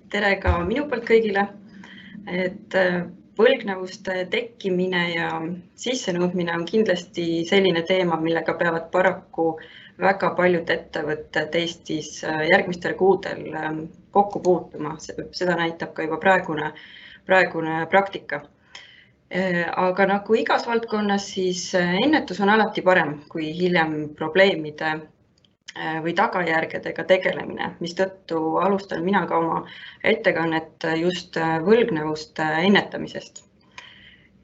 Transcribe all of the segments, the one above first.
Tere ka minu poolt kõigile, et võlgnevuste tekkimine ja sissenõudmine on kindlasti selline teema, millega peavad paraku väga paljud ettevõtted Eestis järgmistel kuudel kokku puutuma. Seda näitab ka juba praegune praktika. Aga nagu igas valdkonnas, siis ennetus on alati parem kui hiljem probleemide või tagajärgedega tegelemine, mistõttu alustan mina ka oma ettekannet just võlgnevuste ennetamisest.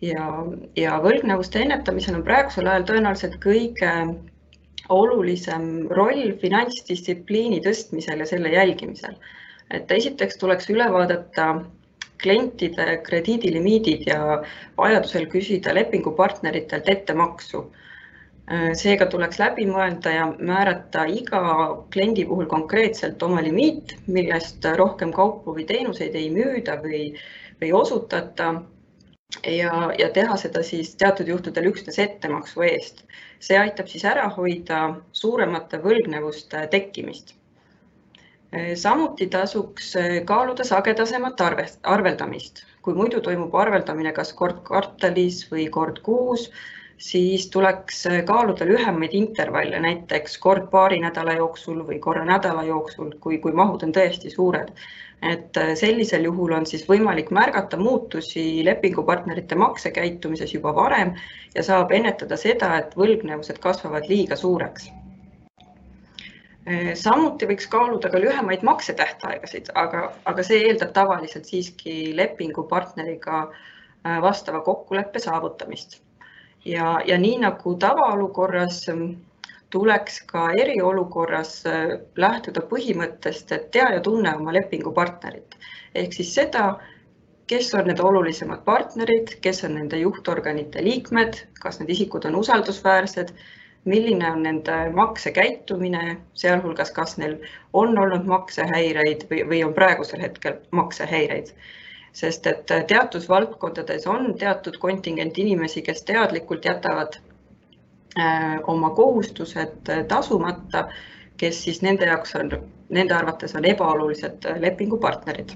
Ja võlgnevuste ennetamisel on praegusel ajal tõenäoliselt kõige olulisem roll finantsdistsipliini tõstmisel ja selle jälgimisel. Et esiteks tuleks üle vaadata klientide krediidilimiidid ja vajadusel küsida lepingupartneritelt ettemaksu. Seega tuleks läbi mõelda ja määrata iga kliendi puhul konkreetselt oma limiit, millest rohkem kaupu või teenuseid ei müüda või osutata ja teha seda siis teatud juhtudel üksnes ettemaksu eest. See aitab siis ära hoida suuremate võlgnevuste tekkimist. Samuti tasuks kaaluda sagedasemat arveldamist. Kui muidu toimub arveldamine kas kord kvartalis või kord kuus, siis tuleks kaaluda lühemaid intervalle, näiteks kord paari nädala jooksul või korra nädala jooksul, kui mahud on tõesti suured. Et sellisel juhul on siis võimalik märgata muutusi lepingupartnerite maksekäitumises juba varem ja saab ennetada seda, et võlgnevused kasvavad liiga suureks. Samuti võiks kaaluda ka lühemaid maksetähtaegasid, aga see eeldab tavaliselt siiski lepingupartneriga vastava kokkuleppe saavutamist. Ja nii nagu tavaolukorras tuleks ka eriolukorras lähtuda põhimõttest, et tea ja tunne oma lepingupartnerit. Ehk siis seda, kes on need olulisemad partnerid, kes on nende juhtorganite liikmed, kas need isikud on usaldusväärsed, milline on nende maksekäitumine, sealhulgas kas neil on olnud maksehäireid või on praegusel hetkel maksehäireid. Sest et teatud valdkondades on teatud kontingent inimesi, kes teadlikult jätavad oma kohustused tasumata, kes siis nende arvates on ebaolulised lepingupartnerid.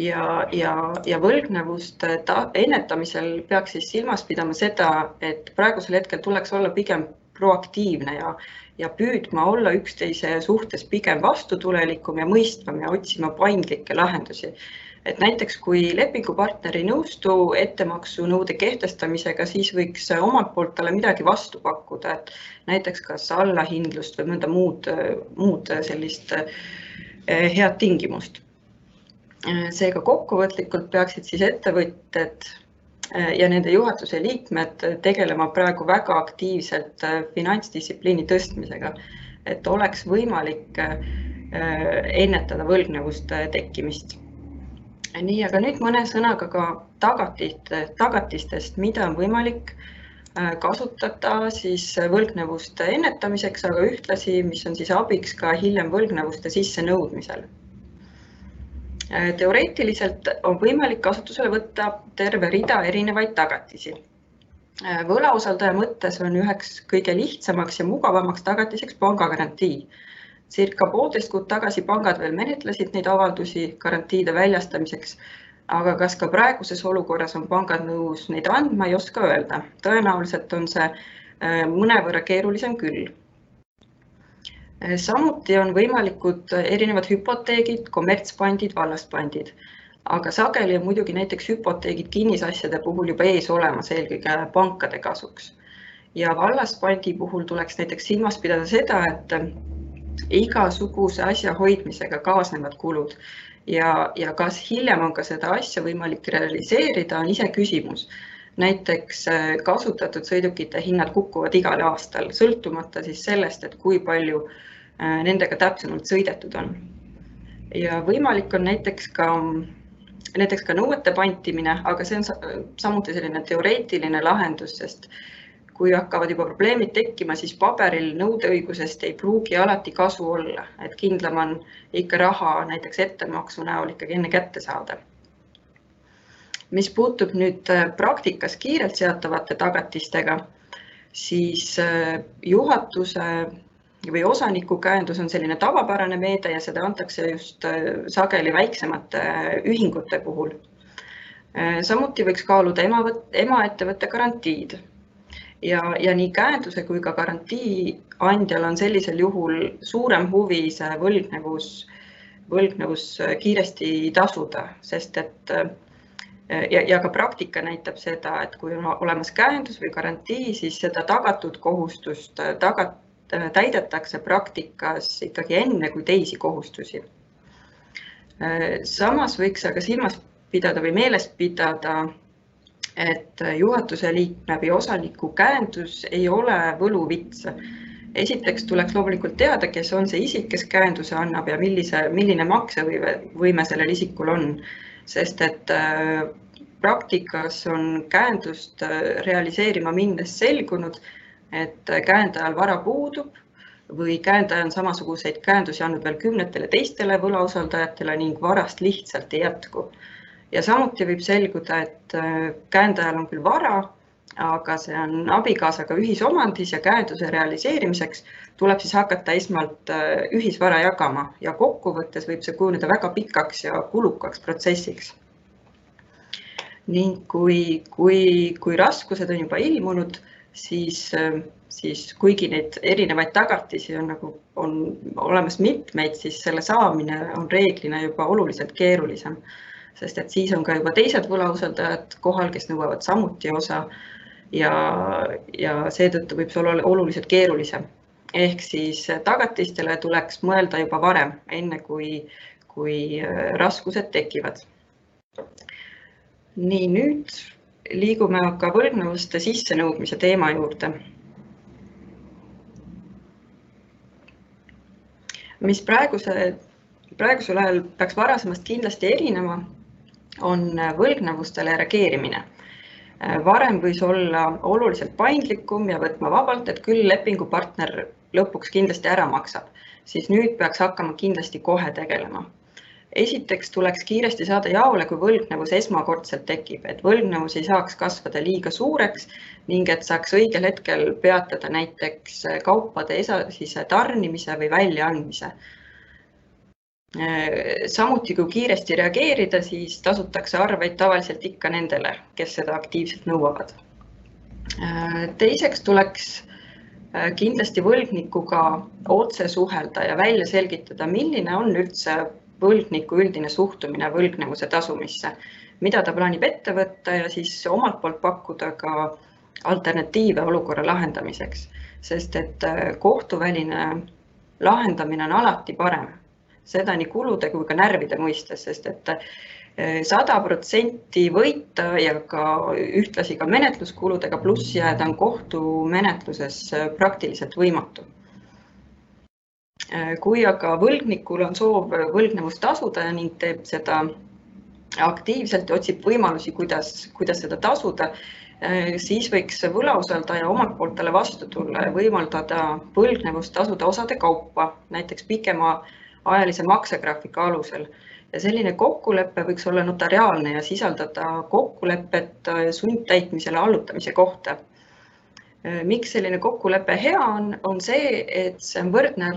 Ja võlgnevuste ennetamisel peaks siis silmas pidama seda, et praegusel hetkel tuleks olla pigem proaktiivne ja püüdma olla üksteise suhtes pigem vastutulelikum ja mõistvam ja otsima paindlikke lahendusi. Et näiteks kui lepingupartner ei nõustu ettemaksunõude kehtestamisega, siis võiks omalt poolt talle midagi vastu pakkuda, et näiteks kas allahindlust või mõnda muud sellist head tingimust. Seega kokkuvõtlikult peaksid siis ettevõtted ja nende juhatuse liikmed tegelema praegu väga aktiivselt finantsdistsipliini tõstmisega, et oleks võimalik ennetada võlgnevuste tekkimist. Nii, aga nüüd mõne sõnaga ka tagatistest, mida on võimalik kasutada siis võlgnevuste ennetamiseks, aga ühtlasi, mis on siis abiks ka hiljem võlgnevuste sissenõudmisel. Teoreetiliselt on võimalik kasutusele võtta terve rida erinevaid tagatisi. Võlausaldaja mõttes on üheks kõige lihtsamaks ja mugavamaks tagatiseks pangagarantii. Circa 1,5 kuud tagasi pangad veel menetlesid neid avaldusi garantiide väljastamiseks, aga kas ka praeguses olukorras on pangad nõus neid andma, ei oska öelda. Tõenäoliselt on see mõnevõrra keerulisem küll. Samuti on võimalikud erinevad hüpoteegid, kommertspandid, vallaspandid, aga sageli on muidugi näiteks hüpoteegid kinnisasjade puhul juba ees olemas eelkõige pankade kasuks. Ja vallaspandi puhul tuleks näiteks silmas pidada seda, et igasuguse asja hoidmisega kaasnevad kulud ja kas hiljem on ka seda asja võimalik realiseerida, on ise küsimus. Näiteks kasutatud sõidukite hinnad kukuvad igal aastal, sõltumata siis sellest, et kui palju nendega täpsemalt sõidetud on. Ja võimalik on näiteks ka nõuete pantimine, aga see on samuti selline teoreetiline lahendus, sest kui hakkavad juba probleemid tekkima, siis paberil nõudeõigusest ei pruugi alati kasu olla, et kindlam on ikka raha näiteks ettemaksu näol ikkagi enne kätte saada. Mis puutub nüüd praktikas kiirelt seatavate tagatistega, siis juhatuse või osanikukäendus on selline tavapärane meede ja seda antakse just sageli väiksemate ühingute puhul. Samuti võiks kaaluda emaettevõtte garantiid ja nii käenduse kui ka garantii andjal on sellisel juhul suurem huvi see võlgnevus kiiresti tasuda, sest et ja ka praktika näitab seda, et kui on olemas käendus või garantii, siis seda tagatud kohustust täidetakse praktikas ikkagi enne kui teisi kohustusi. Samas võiks aga silmas pidada või meeles pidada, et juhatuse liikme või osaniku käendus ei ole võluvits. Esiteks tuleks loomulikult teada, kes on see isik, kes käenduse annab ja milline maksevõime sellel isikul on, sest et praktikas on käendust realiseerima minnes selgunud, et käendajal vara puudub või käendaja on samasuguseid käendusi andnud veel kümnetele teistele võlausaldajatele ning varast lihtsalt ei jätku. Ja samuti võib selguda, et käendajal on küll vara, aga see on abikaasaga ühisomandis ja käenduse realiseerimiseks tuleb siis hakata esmalt ühisvara jagama ja kokkuvõttes võib see kujuneda väga pikaks ja kulukaks protsessiks. Ning kui raskused on juba ilmunud, siis kuigi neid erinevaid tagatisi on olemas mitmeid, siis selle saamine on reeglina juba oluliselt keerulisem. Sest et siis on ka juba teised võlausaldajad kohal, kes nõuavad samuti osa ja seetõttu võib see olla oluliselt keerulisem. Ehk siis tagatistele tuleks mõelda juba varem, enne kui raskused tekivad. Nii, nüüd liigume aga võlgnevuste sissenõudmise teema juurde. Mis praegusel ajal peaks varasemast kindlasti erinema, on võlgnevustele reageerimine. Varem võis olla oluliselt paindlikum ja võtma vabalt, et küll lepingupartner lõpuks kindlasti ära maksab, siis nüüd peaks hakkama kindlasti kohe tegelema. Esiteks tuleks kiiresti saada jaole, kui võlgnevus esmakordselt tekib, et võlgnevus ei saaks kasvada liiga suureks ning et saaks õigel hetkel peatada näiteks kaupade edasise tarnimise või väljaandmise. Samuti kui kiiresti reageerida, siis tasutakse arveid tavaliselt ikka nendele, kes seda aktiivselt nõuavad. Teiseks tuleks kindlasti võlgnikuga otse suhelda ja välja selgitada, milline on üldse võlgniku üldine suhtumine võlgnevuse tasumisse, mida ta plaanib ette võtta ja siis omalt poolt pakkuda ka alternatiive olukorra lahendamiseks, sest et kohtuväline lahendamine on alati parem. Seda nii kulude kui ka närvide mõistes, sest et 100% võita ja ka ühtlasi ka menetluskuludega pluss jääda on kohtumenetluses praktiliselt võimatu. Kui aga võlgnikul on soov võlgnevust tasuda ning teeb seda aktiivselt ja otsib võimalusi, kuidas seda tasuda, siis võiks võlausaldaja omalt poolt talle vastu tulla ja võimaldada võlgnevust tasuda osade kaupa, näiteks pikema ajalise maksegraafiku alusel. Ja selline kokkulepe võiks olla notariaalne ja sisaldada kokkulepet sundtäitmisele allutamise kohta. Miks selline kokkulepe hea on see, et see on võrdne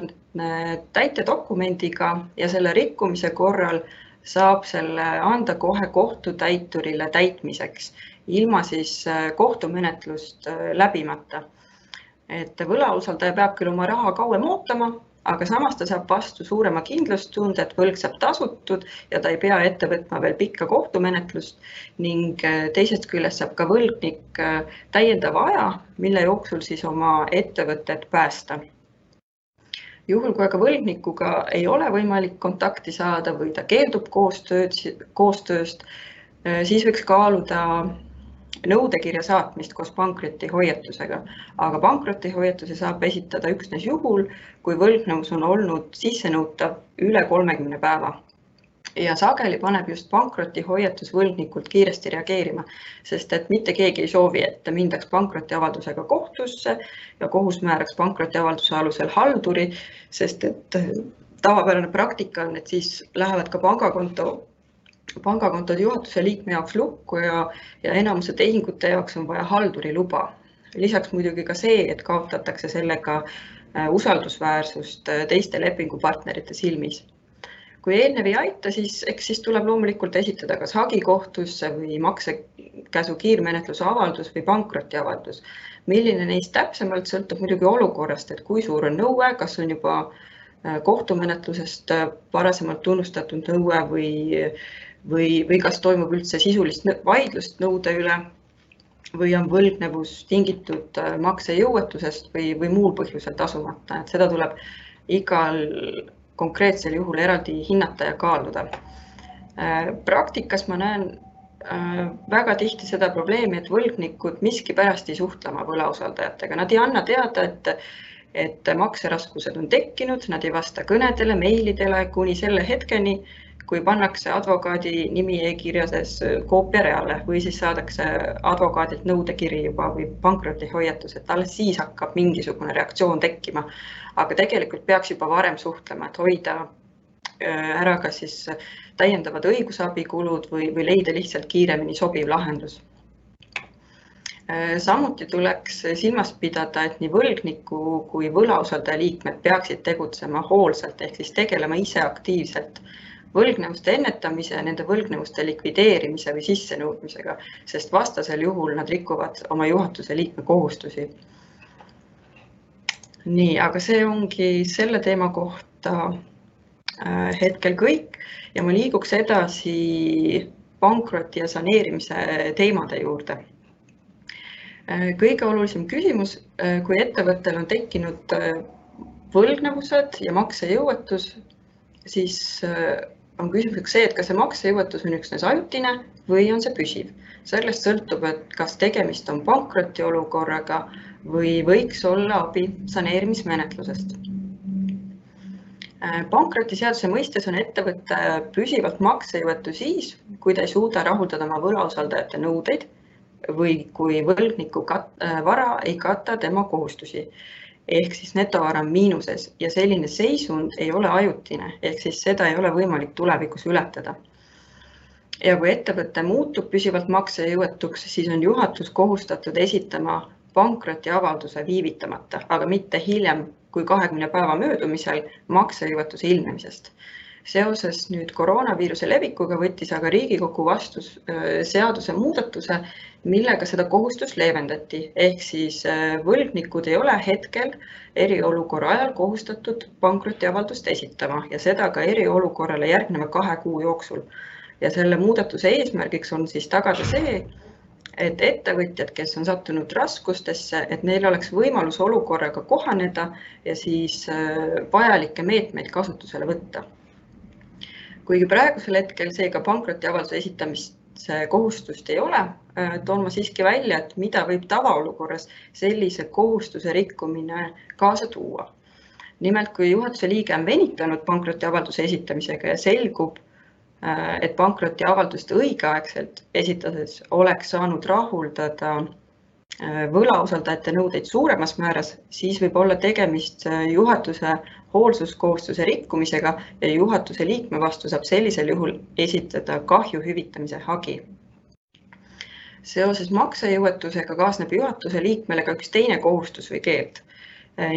täitedokumendiga ja selle rikkumise korral saab selle anda kohe kohtutäiturile täitmiseks, ilma siis kohtumenetlust läbimata. Et võlausaldaja peab küll oma raha kauem ootama, aga samas ta saab vastu suurema kindlustunde, et võlg saab tasutud ja ta ei pea ette võtma veel pikka kohtumenetlust ning teisest küljest saab ka võlgnik täiendava aja, mille jooksul siis oma ettevõtet päästa. Juhul, kui aga võlgnikuga ei ole võimalik kontakti saada või ta keeldub koostööst, siis võiks kaaluda nõudekirja saatmist koos pankrotihoiatusega, aga pankrotihoiatuse saab esitada üksnes juhul, kui võlgnevus on olnud sissenõutav üle 30 päeva. Ja sageli paneb just pankrotihoiatus võlgnikult kiiresti reageerima, sest et mitte keegi ei soovi, et mindaks pankrotiavaldusega kohtusse ja kohus määraks pankrotiavalduse alusel halduri, sest et tavapärane praktika on, et siis lähevad ka pangakontod juhatuse liikme jaoks lukku ja enamuse tehingute jaoks on vaja halduri luba. Lisaks muidugi ka see, et kaotatakse sellega usaldusväärsust teiste lepingupartnerite silmis. Kui eelnev ei aita, siis tuleb loomulikult esitada kas hagi kohtusse või maksekäsu kiirmenetluse avaldus või pankrotiavaldus. Milline neist täpsemalt sõltub muidugi olukorrast, et kui suur on nõue, kas on juba kohtumenetlusest varasemalt tunnustatud nõue või kas toimub üldse sisulist vaidlust nõude üle või on võlgnevus tingitud maksejõuetusest või muul põhjusel tasumata. Et seda tuleb igal konkreetsel juhul eraldi hinnata ja kaaluda. Praktikas ma näen väga tihti seda probleemi, et võlgnikud miskipärast ei suhtle oma võlausaldajatega. Nad ei anna teada, et makseraskused on tekkinud, nad ei vasta kõnedele, meilidele kuni selle hetkeni, kui pannakse advokaadi nimi e-kirjades koopiareale või siis saadakse advokaadilt nõudekiri juba või pankrotihoiatus, et alles siis hakkab mingisugune reaktsioon tekkima. Aga tegelikult peaks juba varem suhtlema, et hoida ära ka siis täiendavad õigusabikulud või leida lihtsalt kiiremini sobiv lahendus. Samuti tuleks silmas pidada, et nii võlgniku kui võlausaldaja liikmed peaksid tegutsema hoolsalt ehk siis tegelema ise aktiivselt võlgnevuste ennetamise, nende võlgnevuste likvideerimise või sissenõudmisega, sest vastasel juhul nad rikuvad oma juhatuse liikme kohustusi. Nii, aga see ongi selle teema kohta hetkel kõik ja ma liiguks edasi pankroti ja saneerimise teemade juurde. Kõige olulisem küsimus, kui ettevõttel on tekkinud võlgnevused ja maksejõuetus, siis on küsimuseks see, et kas see maksejõuetus on üksnes ajutine või on see püsiv. Sellest sõltub, et kas tegemist on pankrotiolukorraga või võiks olla abi saneerimismenetlusest. Pankrotiseaduse mõistes on ettevõtte püsivalt maksejõuetu siis, kui ta ei suuda rahuldada oma võlausaldajate nõudeid või kui võlgniku vara ei kata tema kohustusi. Ehk siis netovara on miinuses ja selline seisund ei ole ajutine, ehk siis seda ei ole võimalik tulevikus ületada. Ja kui ettevõte muutub püsivalt maksejõuetuks, siis on juhatus kohustatud esitama pankrotiavalduse viivitamata, aga mitte hiljem kui 20 päeva möödumisel maksejõuetuse ilmnemisest. Seoses nüüd koroonaviiruse levikuga võttis aga Riigikogu vastu seaduse muudatuse, millega seda kohustust leevendati, ehk siis võlgnikud ei ole hetkel eriolukorra ajal kohustatud pankrotiavaldust esitama ja seda ka eriolukorrale järgneva 2 kuu jooksul. Ja selle muudatuse eesmärgiks on siis tagada see, et ettevõtjad, kes on sattunud raskustesse, et neil oleks võimalus olukorraga kohaneda ja siis vajalikke meetmeid kasutusele võtta. Kuigi praegusel hetkel seega pankrotiavalduse esitamist kohustust ei ole, toon ma siiski välja, et mida võib tavaolukorras sellise kohustuse rikkumine kaasa tuua. Nimelt, kui juhatuse liige on venitanud pankrotiavalduse esitamisega ja selgub, et pankrotiavaldust õigeaegselt esitades oleks saanud rahuldada võlausaldajate nõudeid suuremas määras, siis võib olla tegemist juhatuse hoolsuskohustuse rikkumisega ja juhatuse liikme vastu saab sellisel juhul esitada kahju hüvitamise hagi. Seoses maksejõuetusega kaasneb juhatuse liikmele ka üks teine kohustus või keeld.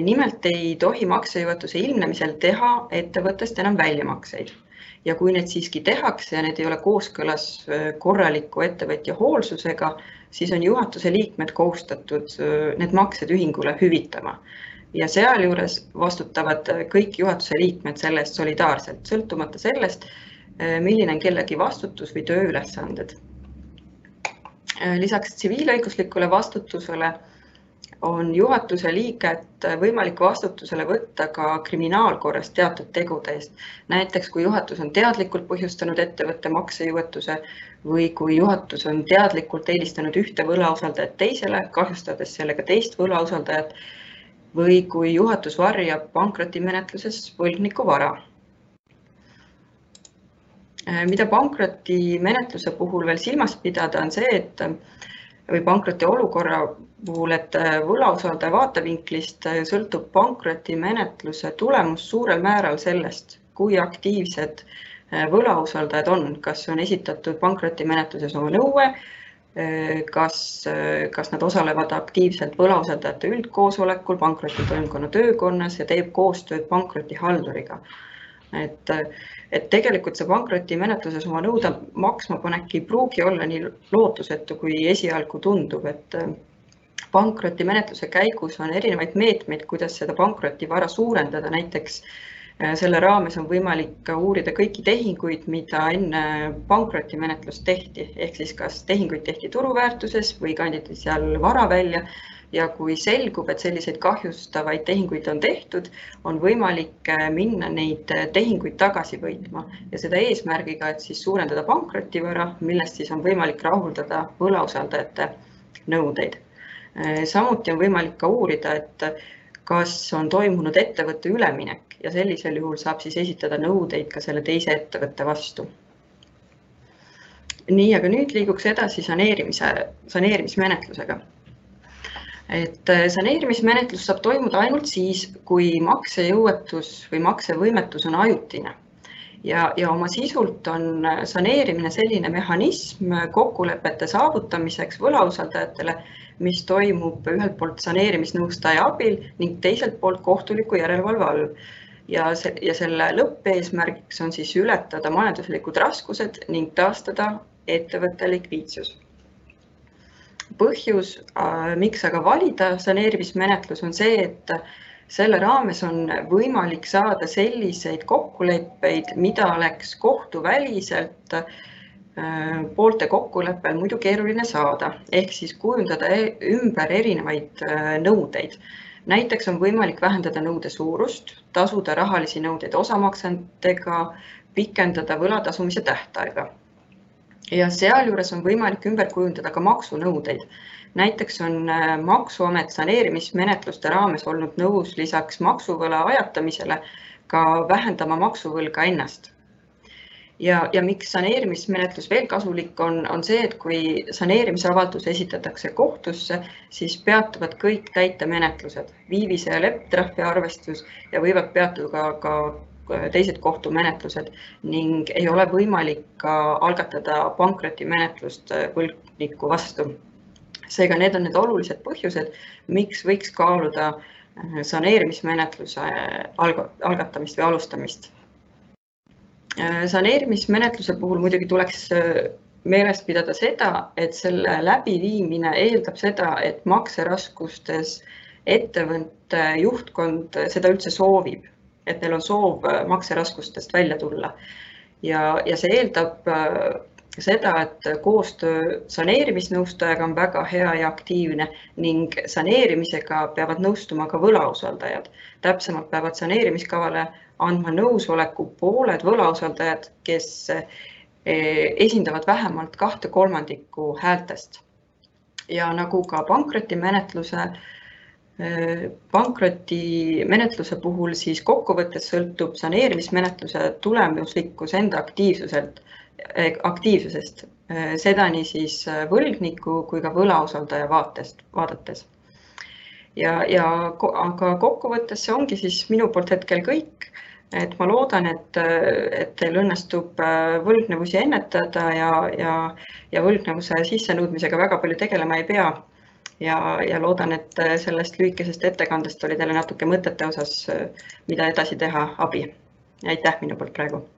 Nimelt ei tohi maksejõuetuse ilmnemisel teha ettevõttest enam väljamakseid. Ja kui need siiski tehakse ja need ei ole kooskõlas korraliku ettevõtja hoolsusega, siis on juhatuse liikmed kohustatud need maksed ühingule hüvitama. Ja sealjuures vastutavad kõik juhatuse liikmed sellest solidaarselt, sõltumata sellest, milline on kellegi vastutus või tööülesanded. Lisaks tsiviilõiguslikule vastutusele on juhatuse liiget võimalik vastutusele võtta ka kriminaalkorras teatud tegude eest. Näiteks, kui juhatus on teadlikult põhjustanud ettevõtte maksejõuetuse või kui juhatus on teadlikult eelistanud ühte võlausaldajat teisele, kahjustades sellega teist võlausaldajat või kui juhatus varjab pankrotimenetluses võlgniku vara. Mida pankrotimenetluse puhul veel silmas pidada on see, et või pankroti olukorra puhul, et võlausaldaja vaatevinklist sõltub pankrotimenetluse tulemus suurel määral sellest, kui aktiivsed võlausaldajad on, kas on esitatud pankrotimenetluses oma nõue kas nad osalevad aktiivselt võlausaldajate üldkoosolekul, pankrotitoimkonna töökonnas ja teeb koostööd pankrotihalduriga. Et tegelikult see pankrotimenetluses oma nõude maksma panek ei pruugi olla nii lootusetu, kui esialgu tundub, et pankrotimenetluse käigus on erinevaid meetmeid, kuidas seda pankrotivara suurendada. Näiteks selle raames on võimalik uurida kõiki tehinguid, mida enne pankrotimenetlust tehti, ehk siis kas tehinguid tehti turuväärtuses või kanditi seal vara välja. Ja kui selgub, et selliseid kahjustavaid tehinguid on tehtud, on võimalik minna neid tehinguid tagasi võitma ja seda eesmärgiga, et siis suurendada pankrotivara, millest siis on võimalik rahuldada võlausaldajate nõudeid. Samuti on võimalik ka uurida, et kas on toimunud ettevõtte üleminek ja sellisel juhul saab siis esitada nõudeid ka selle teise ettevõtte vastu. Nii, aga nüüd liiguks edasi saneerimismenetlusega. Et saneerimismenetlus saab toimuda ainult siis, kui maksejõuetus või maksevõimetus on ajutine. Ja oma sisult on saneerimine selline mehhanism kokkulepete saavutamiseks võlausaldajatele, mis toimub ühelt poolt saneerimisnõustaja abil ning teiselt poolt kohtuliku järelevalve all. Ja selle lõppeesmärgiks on siis ületada majanduslikud raskused ning taastada ettevõtte likviidsus. Põhjus, miks aga valida saneerimismenetlus, on see, et selle raames on võimalik saada selliseid kokkuleppeid, mida oleks kohtuväliselt poolte kokkuleppel muidu keeruline saada, ehk siis kujundada ümber erinevaid nõudeid. Näiteks on võimalik vähendada nõude suurust, tasuda rahalisi nõudeid osamaksentega, pikendada võlatasumise tähtaega. Ja sealjuures on võimalik ümber kujundada ka maksunõudeid. Näiteks on Maksuamet saneerimismenetluste raames olnud nõus lisaks maksuvõla ajatamisele ka vähendama maksuvõlga ennast. Ja miks saneerimismenetlus veel kasulik on see, et kui saneerimisavaldus esitatakse kohtusse, siis peatuvad kõik täitemenetlused, viivise ja leptrahvi arvestus ja võivad peatuda ka teised kohtumenetlused ning ei ole võimalik ka algatada pankrotimenetlust võlgniku vastu. Seega need on need olulised põhjused, miks võiks kaaluda saneerimismenetluse algatamist või alustamist. Saneerimismenetluse puhul muidugi tuleks meeles pidada seda, et selle läbiviimine eeldab seda, et makseraskustes ettevõtte juhtkond seda üldse soovib, et neil on soov makseraskustest välja tulla. Ja see eeldab seda, et koostöö saneerimisnõustajaga on väga hea ja aktiivne ning saneerimisega peavad nõustuma ka võlausaldajad. Täpsemalt peavad saneerimiskavale andma nõusoleku pooled võlausaldajad, kes esindavad vähemalt 2/3 häältest. Ja nagu ka pankrotimenetluse puhul siis kokkuvõttes sõltub saneerimismenetluse tulemuslikkus enda aktiivsusest, seda nii siis võlgniku kui ka võlausaldaja vaadates. Aga kokkuvõttes see ongi siis minu poolt hetkel kõik, et ma loodan, et teil õnnestub võlgnevusi ennetada ja võlgnevuse sissenõudmisega väga palju tegelema ei pea. Ja loodan, et sellest lühikesest ettekandest oli teile natuke mõtete osas, mida edasi teha abi. Aitäh minu poolt praegu.